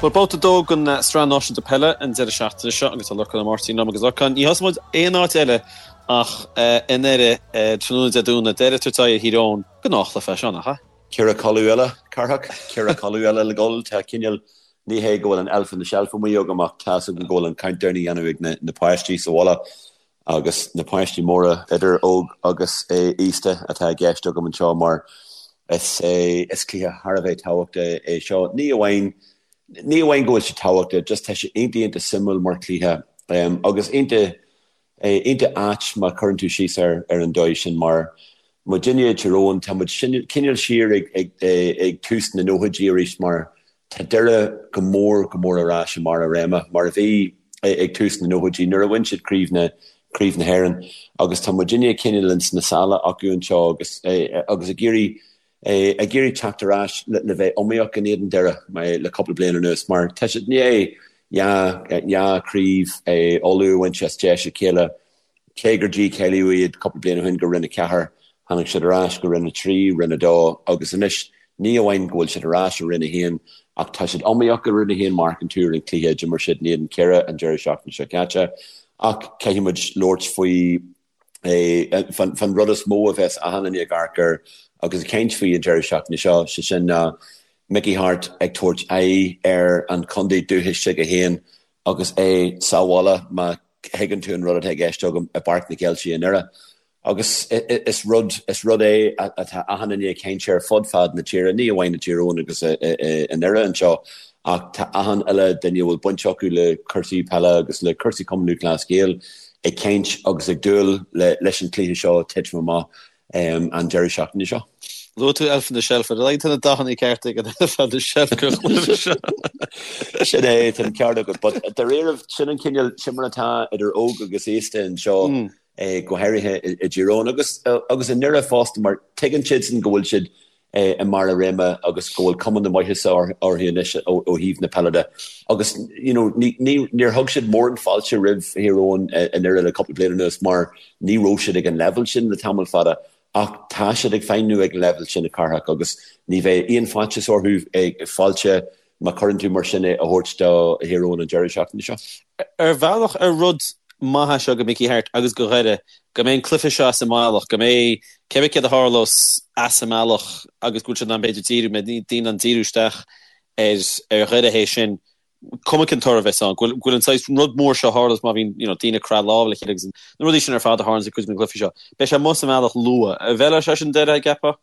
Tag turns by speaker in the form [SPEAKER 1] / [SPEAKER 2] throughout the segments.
[SPEAKER 1] Bhuel, babhta 2 den Sraith Náisiúnta Peile an deireadh seachtaine seo agus tá Lorcán Ó Máirtín liom agus Lorcán, ní thosóidh muid aon áit eile ach i nDoire tráthnóna Dé Domhnaigh, Doire ag tabhairt aghaidh ar Thír Eoghain, gnáthchluiche é seo, nach ea?
[SPEAKER 2] Ceithre codladh eile, Cárthach, ceithre codladh eile le dhul. Tá cineál, ní hé go bhfuil an elf on the shelf amuigh agam ach tá's agam go bhfuil an countdown á dhéanamh ag na páistí sa bhaile agus na páistí móra, idir óg agus aosta, atá i gceist agam anseo mar is is cluiche thar a bheith tábhachtach é seo. Ní amháin ní amháin go bhfuil sé tábhachtach, just tá sé iontach iontach suimiúil mar chluiche agus iontach iontach ait má chuireann tú síos air ar an dóigh sin mar muidinne i dTír Eoghain tá muid cineál siar ag ag ag tús na nóchaidí arís mar Tá Doire go mór go mór ar ais i mbarr a réime, mar a bhí ag tús na nóchaidí nuair a bhain siad Craobh na Craobh na hÉireann agus tá muidinne cineál ins na sála acu anseo agus agus ag iarraidh ag iarraidh teacht ar ais le le bheith iomaíoch in éadan Doire le cúpla bliain anuas mar tá siad i ndiaidh dhá dhá chraobh Uladh a bhaint as deis a chéile. Cé gur dícháilíodh iad cúpla bliain ó shin go Roinn 4, tháinig siad ar ais go Roinn 3, Roinn 2 agus anois ní amháin go bhfuil siad ar ais i Roinn 1 ach tá siad iomaíoch i Roinn 1 má amharcann tú ar an cluiche a d'imir siad in éadan Chiarraí an deireadh seachtaine seo caite. Ach caithfidh muid labhairt faoi fan rud is mó a bheas achan duine ag amharc air agus ag caint faoi an deireadh seachtaine seo, sé sin ná Mickey Harte ag tabhairt aghaidh ar an chontae dúchais s'aige féin agus é sa bhaile má thuigeann tú an rud atá i gceist agam i bPáirc na Ceiltí i nDoire. Agus is rud, is rud é atá achan duine ag caint air fud fad na tíre, ní amháin i dTír Eoghain agus i nDoire anseo, ach tá achan uile duine a bhfuil baint acu le cúrsaí peile agus le cúrsaí Cumann Lúthchleas Gael ag caint agus ag dúil leis an chluiche seo titim amach. an deireadh seachtaine seo.
[SPEAKER 1] Luaigh tú Elf on the Shelf, ar a laghad tá na dathanna cearta ag an Elf on the Shelf go chluiche
[SPEAKER 2] seo. Sin é, tá an ceart agat, but dáiríribh, sin an cineál, sin mar atá idir óg agus aosta anseo, go háirithe i dTír Eoghain agus agus i nDoire fosta mar tuigeann siadsan go bhfuil siad i mbarr a réime agus go bhfuil cuma na maitheasa orthu anois ó thaobh na peile de. Agus you know ní níor thug siad mórán fáilte roimh Thír Eoghain i nDoire le cúpla bliain anuas mar ní raibh siad ag an leibhéal sin le tamall fada ach tá siad ag feidhmiú ag an leibhéal sin a Chárthach agus ní bheidh aon faitíos orthu fáilte má chuireann tú mar sin é a thabhairt do Thír Eoghain an deireadh seachtaine seo.
[SPEAKER 1] Ar bhealach, ar rud maith é seo do Mickey Harte agus do Dhoire, go mbeidh an cluiche seo as an mbealach, go mbeidh cé bith céard a tharlós as an mbealach agus go bhfuil siad in ann b'fhéidir díriú, mbeidh daoine in ann díriú isteach ar ar Dhoire théis sin, cuma cén toradh a bheas ann, go bhfuil go bhfuil an saghas rud mór seo a tharlós má bhíonn you know daoine ag croitheadh lámh le chéile agus na rudaí sin ar fad a tharlaíonn i gcuid de na cluichí seo. Beidh sé amuigh as an mbealach luath. An bhfeilfeadh sé sin Doire, an gceapfá?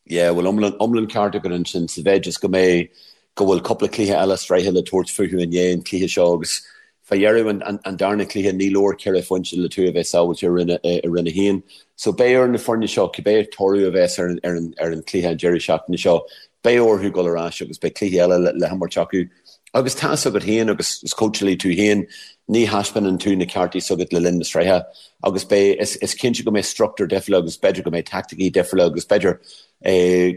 [SPEAKER 2] Yeah, bhuel iomlán, iomlán ceart agat ansin sa mhéid is go mbeidh, go bhfuil cúpla cluiche eile sraithe le tabhairt fúthu i ndiaidh an chluiche seo agus fá dheireadh an, an, an darna cluiche ní leor ceithre phointe le tú a bheith sábháilte i Roinn, i Roinn 1. So beidh ar na foirne seo, cibé toradh a bheas ar an, ar an, ar an chluiche an deireadh seachtaine seo, beidh orthu dul ar ais agus beidh cluichí eile le, le himirt acu. Agus tá's agat féin agus is cóitseálaí tú féin, ní thaispeánann tú na cártaí s'agat le linn na sraithe agus beidh, is cinnte go mbeidh struchtúr difriúla agus b'fhéidir go mbeidh taicticí difriúla agus b'fhéidir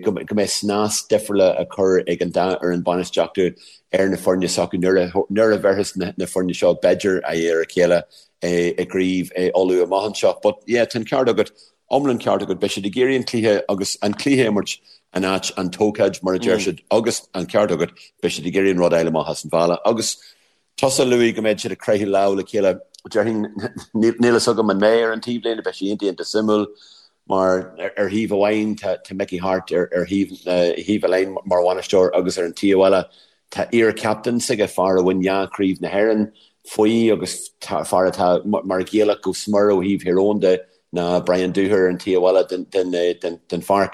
[SPEAKER 2] go mbeidh snas difriúla á chur ag an dá fhoireann bainistíochta ar na foirne s'acu nuair a nuair a bhéarfas na foirne seo b'fhéidir aghaidh ar a chéile i gcraobh Uladh amach anseo. But yeah, tá an ceart agat. Iomlán ceart agat. Beidh siad ag iarraidh an cluiche agus an cluiche a imirt in áit an t-ócáid, mar a deir siad, agus an ceart agat, beidh siad ag iarraidh an rud a fháil amach as an bhealach. Agus tusa a luaigh go mbeidh siad ag croitheadh lámh le chéile, déarfainn, níl fhios agam an mbeidh ar an taobhlíne, beidh sé iontach iontach suimiúil mar ar thaobh amháin tá Mickey Harte ar thaobh thaobh an line mar bhainisteoir agus ar an taobh eile Tá iar-chaptaen s'aige, fear a bhain dhá chraobh na hÉireann faoi agus fear atá mar Ghaelach go smior ó thaobh Thír Eoghain de ná Brian Dooher ar an taobh eile den pháirc.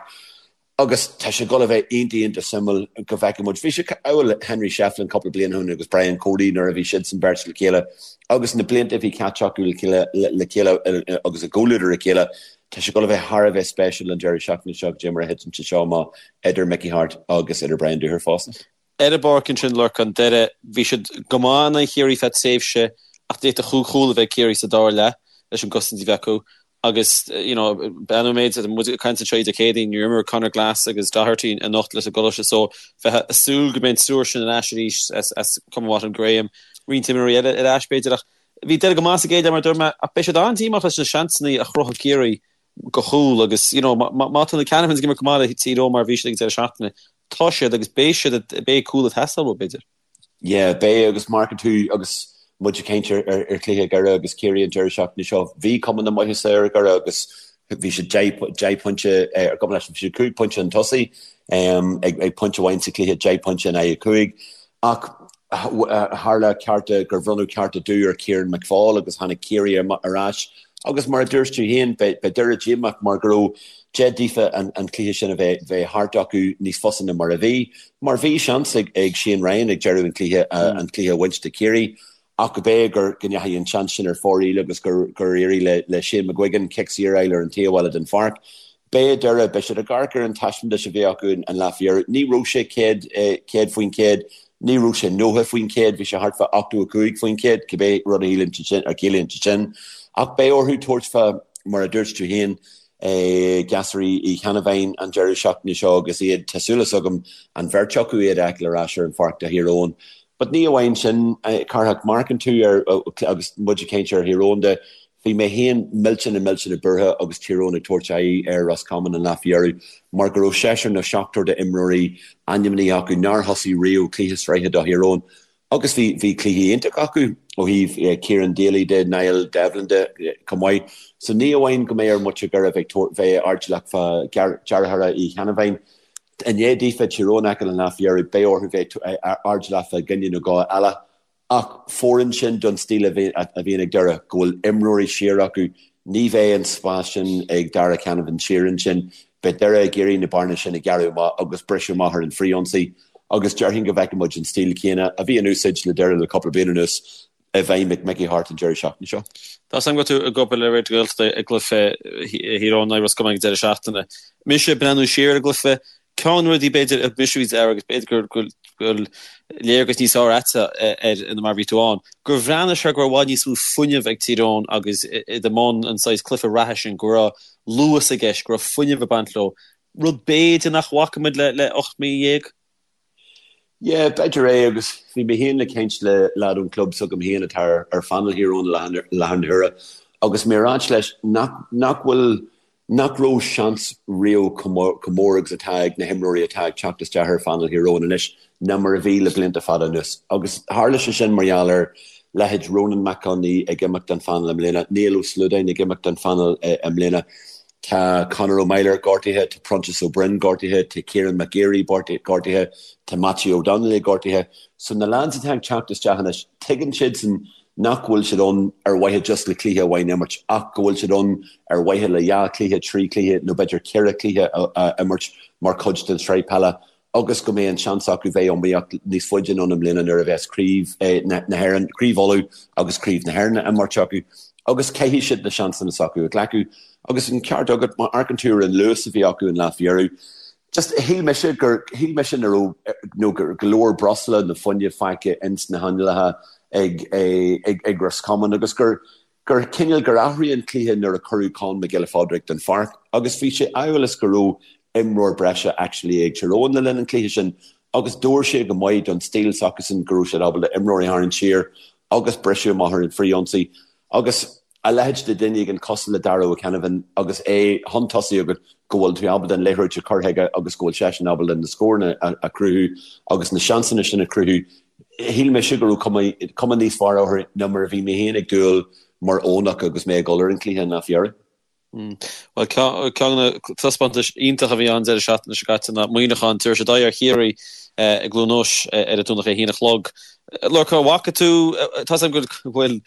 [SPEAKER 2] Agus tá sé ag dul a bheith iontach iontach suimiúil go bhfeicfidh muid. Bhí sé amhail Henry Shefflin cúpla bliain ó shin agus Brian Cody nuair a bhí siadsan beirt le chéile agus na blianta a bhí caite acu le chéile agus i gcomhluadar a chéile. Tá sé ag dul a bheith thar a bheith spéisiúil an deireadh seachtaine seo goidé mar a thiteann sé seo amach idir Mickey Harte agus idir Brian Dooher fosta.
[SPEAKER 1] Ar an bpáirc ansin, Lorcán, Doire, bhí siad go maith in aghaidh Chiarraí feadh tréimhse ach d'fhéadfadh chúig chúl a bheith ag Ciarraí sa dara leath leis an gcosaint a bhí acu agus you know bean méid muid ag caint anseo Dé Céadaoin níor imir Conor Glass agus Doherty anocht leis an gColáiste so bheifeá ag súil go mbeidh an triúr sin ar ais arís as as cuma mhaith an Graham roinnt imreoirí eile ar ais b'fhéidir ach bhí Doire go maith sa gcéad leath mar a dúirt mé ach beidh siad an-díomách leis na seansanna a chruthaigh Ciarraí do chúl agus you know má tá na Canavans ag imirt go maith le Tír Eoghain mar a bhí siad ag an deireadh seachtaine, tá siad agus beidh siad, beidh cúl ag teastáil uathu b'fhéidir.
[SPEAKER 2] Yeah, beidh agus má amharcann tú agus muid ag caint ar ar chluiche Dhoire agus Ciarraí an deireadh seachtaine seo, bhí cuma na maitheasa ar Dhoire agus bhí siad 10 pointe ar gcuma leis, bhí siad 5 pointe chun tosaigh ag ag pointe amháin sa chluiche, 10 pointe in aghaidh 5. Ach tharla cearta gur bhronnadh cearta dubh ar Kieran McFaul agus tháinig Ciarraí ar ais agus mar a dúirt tú féin, beidh Doire díomách mar go raibh deis daofa an cluiche sin a bheith thart acu níos fusa ná mar a bhí. Mar bhí seans ag Shane Ryan ag deireadh an chluiche an cluiche a bhaint do Chiarraí ach go b'é gur go ndeachaigh an seans sin ar fóraoil agus gur gur éirigh le Shane McGuigan cic saor a fháil ar an taobh eile den pháirc. Beidh Doire, beidh siad ag amharc ar an taispeántas a bhí acu an lá faoi dheireadh. Ní raibh sé 100%, ní raibh sé 90%, bhí sé thart fá 85%, cibé rud a shíleann sé sin, a chiallaíonn sé sin. Ach beidh orthu tabhairt fá, mar a dúirt tú féin, gasúraí Uí Cheannabháin an deireadh seachtaine seo agus iad, tá súil agam, an bheirt acu iad a fheiceáil ar ais ar an pháirc do Thír Eoghain. But ní amháin sin, Cárthach, má amharcann tú ar, agus muid ag caint ar Thír Eoghain de, bhí mé féin millteanach millteanach buartha agus Tír Eoghain ag tabhairt aghaidh ar Ros Comáin an lá faoi dheireadh mar go raibh seisear nó seachtar d'imreoirí ainmnithe acu nár thosaigh riamh cluiche sraithe do Thír Eoghain. Agus bhí, bhí cluichí iontach acu ó thaobh Kieran Daly de, Niall Devlin de chomh maith. So ní amháin go mbeidh ar mhuintir Dhoire bheith ag bheith airdeallach fá dheartháireacha Uí Cheannabháin. I ndiaidh daofa Tír Eoghain a fheiceáil an lá faoi dheireadh, beidh orthu bheith airdeallach fá dhuine nó dhó eile. Ach fóireann sin don stíl a bhíonn ag Doire, go bhfuil imreoirí siar acu. Ní bheidh an spás sin ag Darragh Canavan siar ansin. Beidh Doire ag iarraidh na bearna sin a ghearradh amach agus briseadh amach ar an frithionsaí agus déarfainn go bhfeicfidh muid an stíl chéanna a bhí in úsáid le Doire le cúpla bliain anuas i bhfeidhm ag Mickey Harte an deireadh seachtaine seo.
[SPEAKER 1] Tá a fhios agam go bhfuil tú ag obair le Raidió na Gaeltachta ag cluiche Thír Eoghain in aghaidh Ros Comáin ag an deireadh seachtaine. Mise ag breathnú siar ar an gcluiche, Ceann de na rudaí b'fhéidir a thug mise faoi deara agus b'fhéidir go bhfuil léargas níos fearr agatsa air ná mar a bhí tú ann, gur bhreathnaigh sé go raibh i bhfad níos mó fuinnimh ag Tír Eoghain agus iad i mbun an saghas cluiche reatha sin, go raibh luas i gceist, go raibh fuinneamh ag baint leo, rud b'fhéidir nach bhfaca muid le 18 mí.
[SPEAKER 2] Yeah, b'fhéidir é agus bhí mé féin ag caint le leaid ón club s'agam féin atá ar phainéal Thír Eoghain i láthair na huaire agus mé ag ráit leis nach nach bhfuil nach raibh seans riamh chomh mór agus atá ag na himreoirí atá ag teacht isteach ar phainéal Thír Eoghain anois ná mar a bhí le blianta fada anuas. Agus tharla sé sin mar gheall ar leithéid Ronan Mac Con Aoidh ag imeacht den phainéal i mbliana, Niall Ó Sluadáin ag imeacht den phainéal i mbliana, tá Conor Ó Meilir gortaithe, tá Proinsias Ó Broin gortaithe, tá Kieran McGeary gortaithe, tá Mattie Ó Donnaile gortaithe. So na lads atá ag teacht isteach anois, tuigeann siadsan nach bhfuil siad ann ar mhaithe just le cluiche amháin a imirt ach go bhfuil siad ann ar mhaithe le dhá chluiche, trí chluiche nó b'fhéidir ceithre chluiche a imirt mar chuid den tsraith peile agus go mbeidh an seans acu bheith iomaíoch níos faide anonn i mbliana nuair a bheas Craobh na hÉireann, Craobh Uladh agus Craobh na hÉireann á imirt acu agus caithfidh siad na seansanna s'acu a ghlacadh. Agus an ceart agat, má amharcann tú ar an luas a bhí acu an lá faoi dheireadh, Just, shíl mise gur, shíl mise nach raibh, nó gur go leor breosla nó fuinneamh fágtha ins na hanlácha ag, ag, ag Roscommon agus gur, gur cineál, gur athraigh an cluiche nuair a cuireadh Con Mac Giolla Phádraig den pháirc agus bhí sé amhail is go raibh imreoir breise actually ag Tír Eoghain le linn an chluiche sin agus d'fhóir sé go maith don stíl s'acusan go raibh siad ábalta imreoirí a tharraingt siar agus briseadh amach ar an frith-ionsaí Agus a leithéid de dhuine éigin cosúil le Darragh Ó Ceannabháin agus é chun tosaigh agat go bhfuil tú ábalta an liathróid a chur chuige agus go bhfuil seisean ábalta na scóranna a chruthú agus na seansanna sin a chruthú, shíl mise go raibh cuma, cuma níos fearr orthu ná mar a bhí mé féin ag dúil mar Eoghanach agus mé ag dul ar an chluiche an lá faoi dheireadh.
[SPEAKER 1] Bhuel, ceann de na taispeántais iontach a bhí ann deireadh seachtaine seo caite ná Muineachán, tabharfaidh siad aghaidh ar Chiarraí i gCluain Eois ar an Domhnach ag a haon a chlog. Lorcán, an bhfaca tú, tá 's agam go bhfuil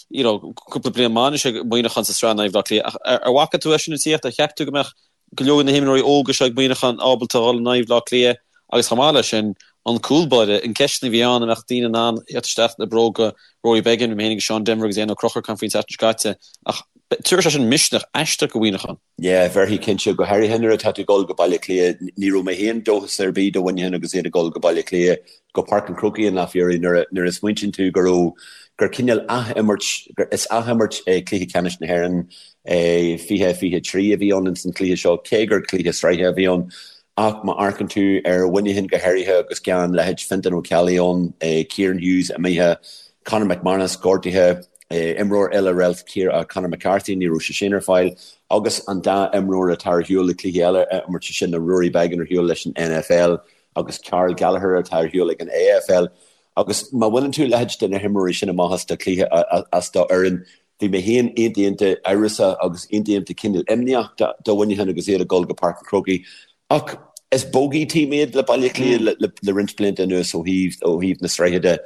[SPEAKER 1] you know cúpla bliain maith anois ag Muineachán sa tsraith in aghaidh Bhaile Átha Cliath ach ar bhfaca tú é sin ag tíocht? Ar cheap tú go mbeadh go leor de na himreoirí óga seo ag Muineachán ábalta a dhul in aghaidh Bhaile Átha Cliath agus chomh maith leis sin, an cúl báire, an ceist a bhí ann an mbeadh daoine in ann theacht isteach le bróga Rory Beggan, bhí mé féin agus Seán Denvir agus Éanna Ó Conchúir ag caint faoin tseachtain seo caite, ach tabharfaidh sé sin misneach aisteach do Mhuineachán.
[SPEAKER 2] Yeah, bhéarfaidh cinnte, go háirithe nuair atá tú ag dul go Baile Átha Cliath. Ní raibh mé féin dóchas ar bith do Mhuineachán agus iad ag dul go Baile Átha Cliath, go Páirc an Chrócaigh an lá faoi dheireadh nuair a nuair a smaointíonn tú go raibh, gur cineál ath-imirt, gur is ath-imirt é Cluiche Ceannais na hÉireann 2023 a bhí ann ins an chluiche seo, cé gur cluiche sraithe a bhí ann. Ach má amharcann tú ar Mhuineachán go háirithe agus gan leithéid Fintan Ó Ceallaigh ann, Kieran Hughes imithe, Conor McManus gortaithe, imreoir eile réalt Conor McCarthy, ní raibh sé sin ar fáil, agus an dá imreoir atá ar shiúl le cluichí eile a imirt, sé sin Rory Beggan ar shiúl leis an NFL agus Karl Gallagher atá ar shiúl ag an AFL. Agus má bhaineann tú a leithéid de na himreoirí sin amach as do chluiche, as do fhoireann, bhí mé féin iontach iontach amhrasach agus iontach iontach cineál imníoch do Mhuineachán agus iad ag dul go Páirc an Chrócaigh. Ach is bogey team iad le Baile Átha Cliath le roinnt blianta anuas ó thaobh ó thaobh na sraithe de.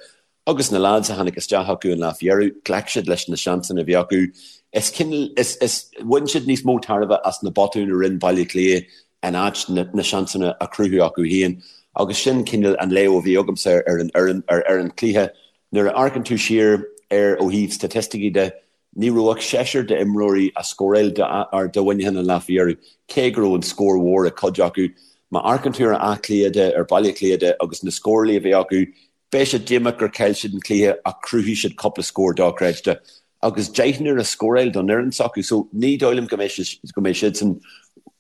[SPEAKER 2] Agus na lads a tháinig isteach acu an lá faoi dheireadh, ghlac siad leis na seansanna a bhí acu. Is cineál, is, is, bhain siad níos mó tairbhe as na botúin a rinne Baile Átha Cliath in áit na, na seansanna a chruthú acu féin. Agus sin cineál an léamh a bhí agamsa ar an fhoireann, ar, ar an chluiche. Nuair a amharcann tú siar air ó thaobh staitisticí de, Ní raibh ach seisear d'imreoirí a scóráil do Mhuineachán an lá faoi dheireadh, cé go raibh an scór mhór ag cuid acu. Má amharcann tú ar Áth Cliath de, ar Baile Átha Cliath de agus na scórálaí a bhí acu, beidh siad díomách gur chaill siad an cluiche ach chruthaigh siad cúpla scór dochreidte agus deichniúr a scóráil don fhoireann s'acu so ní dóigh liom go mbeidh go mbeidh siadsan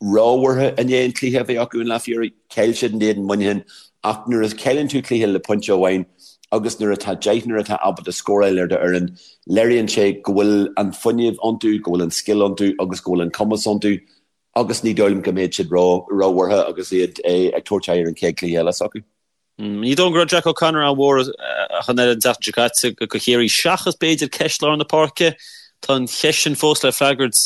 [SPEAKER 2] róbhuartha i ndiaidh an chluiche a bhí acu an lá faoi dheireadh. Chaill siad in éadan Mhuineacháin ach nuair a chailleann tú cluiche le pointe amháin agus nuair atá deichniúr atá ábalta scóráil ar do fhoireann, léiríonn sé go bhfuil an fuinneamh iontu, go bhfuil an scil iontu agus go bhfuil an cumas iontu agus ní dóigh liom go mbeidh siad róbhuartha agus iad ag tabhairt aghaidh ar an chéad chluiche eile s'acu.
[SPEAKER 1] Ní dóigh liom go raibh Jack O'Connor an-mhór ach an oiread an tseachtain seo caite do Chiarraí, seachas b'fhéidir ceist lár na páirce. Tá an cheist sin fós le freagairt.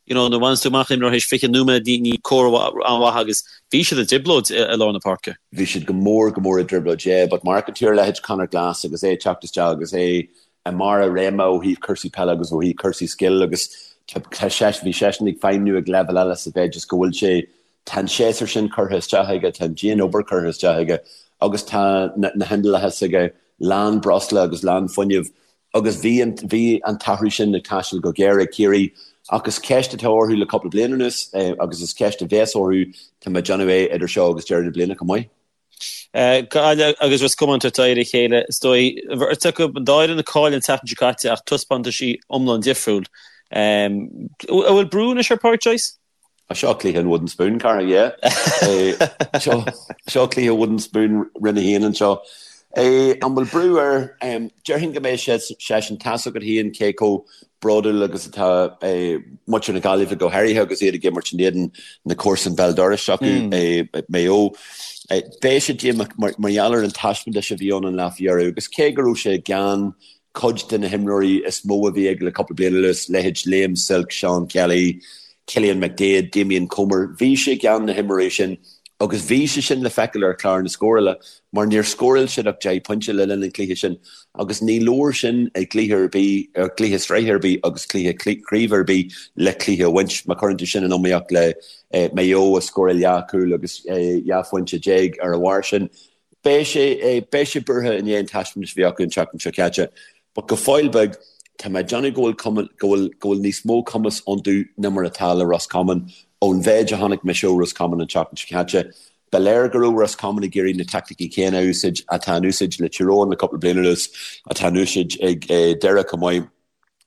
[SPEAKER 1] You know, nuair a bhaineann tú amach imreoir théis 20 nóiméad, ní comhartha an-mhaith agus bhí siad i dtrioblóid i lár na páirce.
[SPEAKER 2] Bhí siad go mór, go mór i dtrioblóid, yeah, but má amharcann tú ar leithéid Conor Glass agus é ag teacht isteach agus é i mbarr a réime ó thaobh cúrsaí peile agus ó thaobh cúrsaí scil agus tá sé, bhí seisean ag feidhmniú ag leibhéal eile sa mhéid is go bhfuil sé Tá an séasúr sin curtha isteach aige, tá an dian-obair curtha isteach aige agus tá na hinnealta s'aige lán breosla agus lán fuinnimh agus bhí an, bhí an t-athrú sin ag taisteal go géar ag Ciarraí ach is ceist atá orthu le cúpla bliain anuas agus is ceist a bheas orthu, tá mé ag déanamh é idir seo agus deireadh na bliana chomh maith.
[SPEAKER 1] Gaillimh agus Ros Comáin ag tabhairt aghaidh ar a chéile, is dóigh. Bheirt acu, an dá fhoireann a chaill an tseachtain seo caite ach taispeántaisí iomlán difriúil. An bhfuil brú anois ar Pádraic Joyce?
[SPEAKER 2] Seo cluiche an wooden spoon, cara, yeah. Seo, seo cluiche wooden spoon Roinn 1 anseo. An bhfuil brú air? Déarfainn go mbeidh seisean, tá's agat féin cé chomh bródúil agus atá muintir na Gaillimhe go háirithe agus iad ag imirt in éadan na comharsan béal dorais acu, Maigh Eo. Beidh sé díomách mar gheall ar an taispeántas a bhí ann an lá faoi dheireadh agus cé go raibh sé gan cuid de na himreoirí is mó a bhí aige le cúpla bliain anuas, leithéid Liam Silke, Seán Kelly, Cillian McDaid, Damien Comer, bhí sé gan na himreoirí sin agus bhí sé sin le feiceáil ar chlár na scórála mar níor scóráil siad ach 10 pointe le linn an chluiche sin agus ní leor sin i gcluiche ar bith, cluiche sraithe ar bith agus cluiche craoibhe ar bith le cluiche a bhaint. Má chuireann tú sin in iomaíocht le Maigh Eo a scóráil 12 chúl agus 12 phointe ar a bharr sin, Beidh sé, beidh sé buartha i ndiaidh an taispeántais a bhí acu an tseachtain seo caite. But go fóill beag, tá mé ag déanamh go bhfuil cuma, go bhfuil, go bhfuil níos mó cumas iontu ná mar atá le Ros Comáin. Ón mhéid a chonaic mise ó Ros Comáin an tseachtain seo caite, ba léir go raibh Ros Comáin ag iarraidh na teaicticí céanna a úsáid atá in úsáid le Tír Eoghain le cúpla bliain anuas, atá in úsáid ag Doire chomh maith.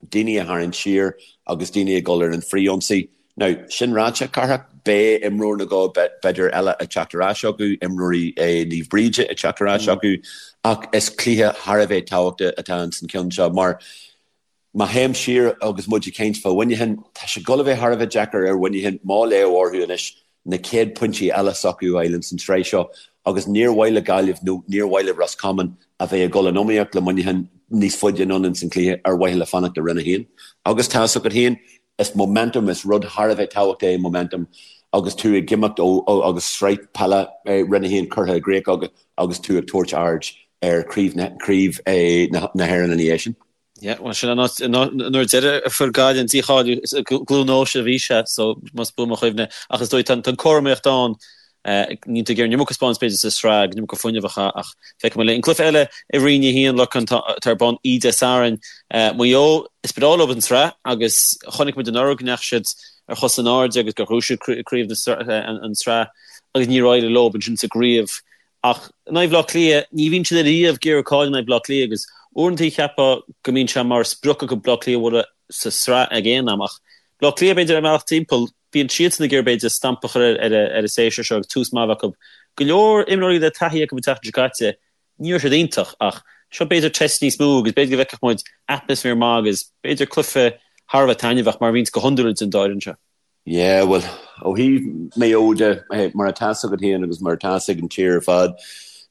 [SPEAKER 2] daoine a tharraingt siar agus daoine ag dul ar an frith-ionsaí. Now, sin ráite, Cárthach, beidh imreoir nó dhó b'fhéidir eile ag teacht ar ais acu, imreoirí Naomh Bríde ag teacht ar ais acu, ach is cluiche thar a bheith tábhachtach atá ins an cheann seo mar má théim siar agus muid ag caint fá Mhuineachán, tá sé ag dul a bheith thar a bheith deacair ar Mhuineachán má léamh orthu anois na chéad pointí eile s'acu a fháil ins an tsraith seo agus níor mhaith le Gaillimh nó níor mhaith le Ros Comáin a bheith ag dul in iomaíocht le Muineachán níos faide anonn ins an chluiche ar mhaithe le fanacht i Roinn 1. Agus tá 'fhios agat féin, is momentum, is rud thar a bheith tábhachtach é momentum agus tú ag imeacht ó agus sraith peile Roinn 1 curtha i gcrích agat agus tú ag tabhairt aird ar chraobh na hÉireann ina dhiaidh sin.
[SPEAKER 1] Yeah, bhuel sin an áit, an uair deiridh a fuair Gaillimh an dícháiliú, is i gCluain Eois a bhí sé, so más buan mo chuimhne. Ach is dóigh tá an cothromaíocht ann, níl tú ag iarraidh an iomarca a spáint b'fhéidir sa sraith, an iomarca fuinnimh a chaitheamh ach feicfidh muid linn. An cluiche eile i Roinn 1, Lorcán, atá ar bun oíche Dé Sathairn, Maigh Eo, is breá leo an tsraith agus chonaic muid anuraidh go ndeachaigh siad ar chos in airde agus gur ghnóthaigh siad craobh an tsraith agus níor éirigh leo ansin sa gcraobh. Ach in aghaidh Bhaile Átha Cliath, ní bhíonn siad ariamh ag iarraidh cailleadh in aghaidh Bhaile Átha Cliath agus uaireanta cheapfá go mbíonn sé mar sprioc acu Baile Átha Cliath a bhualadh sa sraith ag aon am. Ach Baile Átha Cliath, b'fhéidir, ar an mbealach timpeall, bíonn siadsan ag iarraidh, b'fhéidir, stampa a chur ar an séasúr seo agus tús maith a bheith acu. Go leor imreoirí le taithí acu an tseachtain seo caite, ní raibh siad iontach ach seo b'fhéidir test níos mó agus b'fhéidir go bhfeicfeadh muid atmaisféar maith agus b'fhéidir cluiche thar a bheith taitneamhach mar a bhíonns go hiondúil idir an dá fhoireann seo.
[SPEAKER 2] Yeah, bhuel, ó thaobh Maigh Eo de, mar atá 'fhios agat féin agus mar atá 'fhios ag an tír ar fad,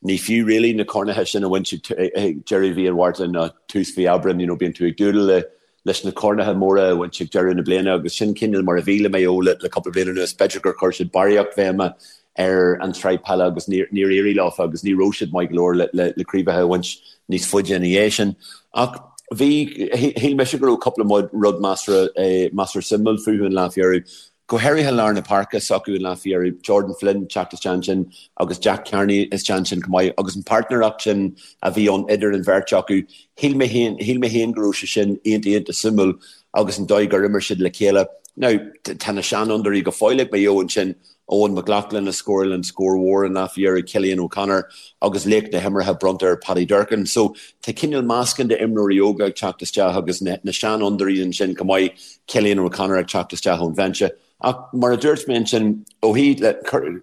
[SPEAKER 2] Ní fiú really na cornacha sin a bhaint ag deireadh mhí an Mhárta nó tús mhí Aibreáin, you know, bíonn tú ag dúil le leis na cornacha móra a bhaint ag deireadh na bliana agus sin cineál mar a bhí le Maigh Eo le cúpla bliain anuas. B'fhéidir gur chuir siad barraíocht bhéime ar an tsraith peile agus níor éirigh leofa agus ní raibh siad maith go leor le le craobhacha a bhaint níos faide ina dhiaidh sin. Ach bhí, shíl mise go raibh cúpla rud measartha measartha suimiúil fúthu an lá faoi dheireadh. Go háirithe lár na páirce s'acu an lá faoi dheireadh, Jordan Flynn teacht isteach ansin agus Jack Carney isteach ansin chomh maith agus an páirtnéireacht sin a bhí ann idir an bheirt acu, shíl mé féin, shíl mé féin go raibh sé sin iontach iontach suimiúil agus an dóigh gur imir siad le chéile. Now, tá na seanfhondúirí go fóill ag Maigh Eo ansin, Eoghan McLaughlin a scóráil an scór mhór an lá faoi dheireadh, Cillian O'Connor agus laoch na himeartha bronnta ar Paddy Durcan. So, tá cineál meascán d'imreoirí óga ag teacht isteach agus na seanfhondúirí ansin chomh maith, Cillian O'Connor ag teacht isteach ón bhinse. Ach mar a dúirt mé ansin, ó thaobh le,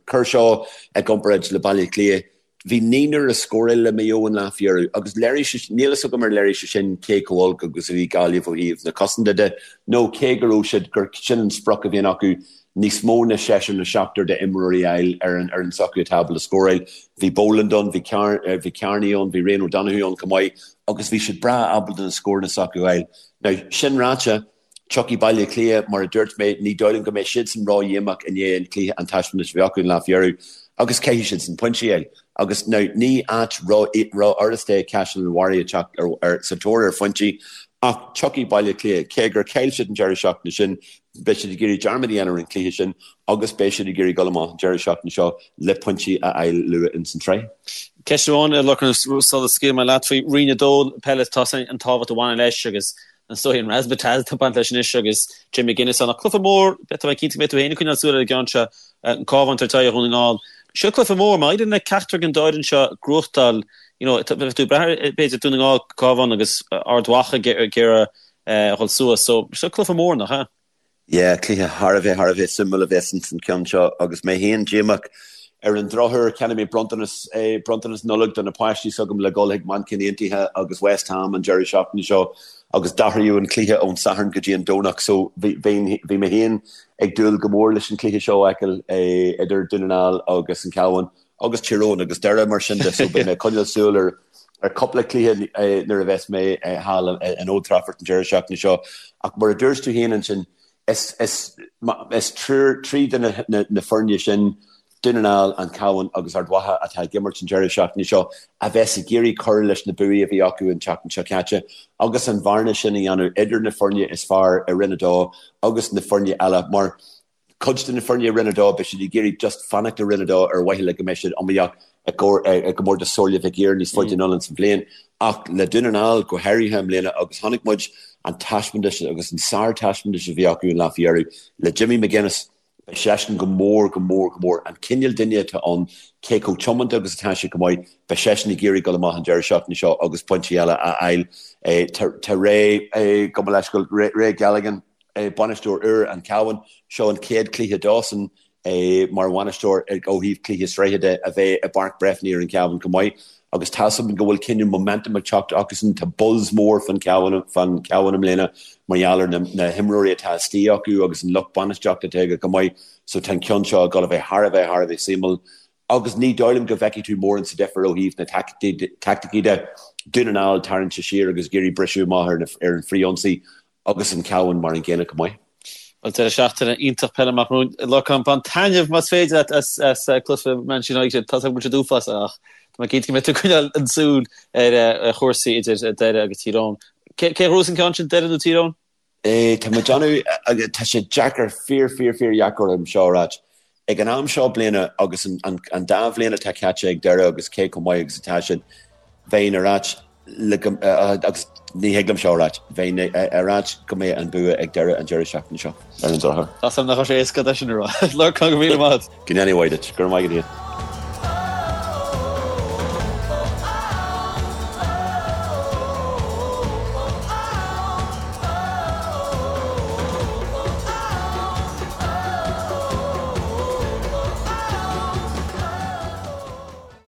[SPEAKER 2] cuir seo i gcomparáid le Baile Átha Cliath, bhí naonúr ag scóráil le Maigh Eo an lá faoi dheireadh agus léirigh sé, níl fhios agam ar léirigh sé sin cé chomh olc agus a bhí Gaillimh ó thaobh na cosanta de nó cé go raibh siad, gur sin an sprioc a bhíonn acu, níos mó ná seisear nó seachtar d'imreoirí a fháil ar an fhoireann s'acu atá ábalta scóráil. Bhí Boland ann, bhí bhí Kearney ann, bhí Ryan O'Donoghue ann chomh maith agus bhí siad breá ábalta na scóranna s'acu a fháil. Now, sin ráite, tiocfaidh Baile Átha Cliath, mar a dúirt mé, ní dóigh liom go mbeidh siadsan ró-dhíomách i ndiaidh an cluiche, an taispeántas a bhí acu an lá faoi dheireadh agus caithfidh siadsan pointí a fháil. Agus now, ní áit ró-fhurasta é Caisleán an Bharraigh a teacht ar, ar, sa tóir ar phointí ach tiocfaidh Baile Átha Cliath, cé gur chaill siad an deireadh seachtaine sin, beidh siad ag iarraidh dearmad a dhéanamh ar an chluiche sin agus beidh siad ag iarraidh dul amach an deireadh seachtaine seo le pointí a fháil luath ins an tsraith.
[SPEAKER 1] Ceist amháin, a Lorcáin, sula scaoilfidh mé leat faoi Roinn 2 peile, tá an tábhacht a bhaineann leis agus an dóigh an razzmatazz atá ag baint leis anois agus Jim McGuinness ann. Ach cluiche mór, tá mé cinnte go mbeidh tú féin ag coinneáil súil ar an gceann seo, an Cabhán ag tabhairt aghaidh ar Dhún na nGall. Seo cluiche mór, má éiríonn le ceachtar den dá fhoireann seo gnóthachtáil, you know, bheadh tú ag brath ar b'fhéidir Dún na nGall, Cabhán agus Ard Mhacha ag iarraidh a dhul suas. So, seo cluiche mór, nach ea?
[SPEAKER 2] Yeah, cluiche thar a bheith, thar a bheith suimiúil a bheas ins an ceann seo agus mé féin díomách. Ar an drochuair, cheannaigh mé bronntanas, bronntanas Nollag do na páistí s'agam le dhul chuig Manchain Aontaithe agus West Ham an deireadh seachtaine seo agus d'athraíodh an cluiche ón Satharn go dtí an Domhnach so bhí, bhí, bhí mé féin ag dúil go mór leis an cluiche seo a fheiceáil idir Dún na nGall agus an Cabhán. agus Tír Eoghain agus Doire mar sin de so beidh mé ag coinneáil súil ar ar cúpla cluiche nuair a bheas mé thall in Old Trafford an deireadh seachtaine seo ach mar a dúirt tú féin ansin is is is triúr trí de na na foirne sin Dún na nGall, An Cabhán agus Ard Mhacha atá ag imirt an deireadh seachtaine seo a bheas ag iarraidh cur leis na buaí a bhí acu an tseachtain seo caite agus an bhearna sin a dhéanamh idir na foirne is fearr i Roinn 2 agus na foirne eile mar Cuid de na foirne i Roinn 2, beidh siad ag iarraidh just fanacht i Roinn 2 ar mhaithe le go mbeidh siad iomaíoch i gcomórtas Somhairle Mhic Uidhir níos faide anonn ins an bhliain. Ach le Dún na nGall, go háirithe i mbliana, agus chonaic muid an taispeántas agus an sár-taispeántas a bhí acu an lá faoi dheireadh le Jimmy McGuinness, beidh seisean go mór, go mór, go mór, an cineál duine atá ann, cé chomh tiomanta agus atá sé chomh maith, beidh seisean ag iarraidh dul amach an deireadh seachtaine seo agus pointí eile a fháil. Tá Ray, gabh mo leithscéal, Ray Galligan, Bainisteoir úr an Chabháin, seo an chéad chluiche dósan mar bhainisteoir ó thaobh cluiche sraithe de a bheith i bPáirc Breffni ar an Chabhán chomh maith agus tá's agam go bhfuil cineál momentum ag teacht acusan, tá buzz mór fán Chabhán i mbliana mar gheall ar na himreoirí atá istigh acu agus an lucht bainistíochta atá aige chomh maith so tá an ceann seo ag dul a bheith thar a bheith thar a bheith suimiúil agus ní dóigh liom go bhfeicfidh tú mórán sa difear ó thaobh na taicticí de, Dún na nGall tarraingt siar agus ag iarraidh briseadh amach ar an frithionsaí agus an Cabhán mar an gcéanna chomh maith.
[SPEAKER 1] Bhuel, deireadh seachtaine iontach peile amach romhainn. Lorcán, bain taitneamh más féidir leat as cluiche Manchester United. Tá a fhios agam go bhfuil siad uafásach ach tá mé cinnte go mbeidh tú ag coinneáil an súil ar chúrsaí idir Doire agus Tír Eoghain. Cé a ghnóthós an ceann sin, Doire nó Tír Eoghain?
[SPEAKER 2] Tá mé ag déanamh, tá sé deacair, fíor, fíor, fíor dheacair orm seo a ráit. Ag an am seo bliana agus an dá bhliain atá caite ag Doire agus cé chomh maith agus atá siad, bheinn ag ráit le go, agus ní thig liom seo a ráit, bheinn ag ráit go mbeidh an bua ag Doire an deireadh seachtaine seo, ar an drochuair.
[SPEAKER 1] Tá a fhios agam nach raibh sé éasca é sin a rá. Lorcán, go raibh míle maith agat.
[SPEAKER 2] Go ndéana Dia duit. Go raibh maith agat.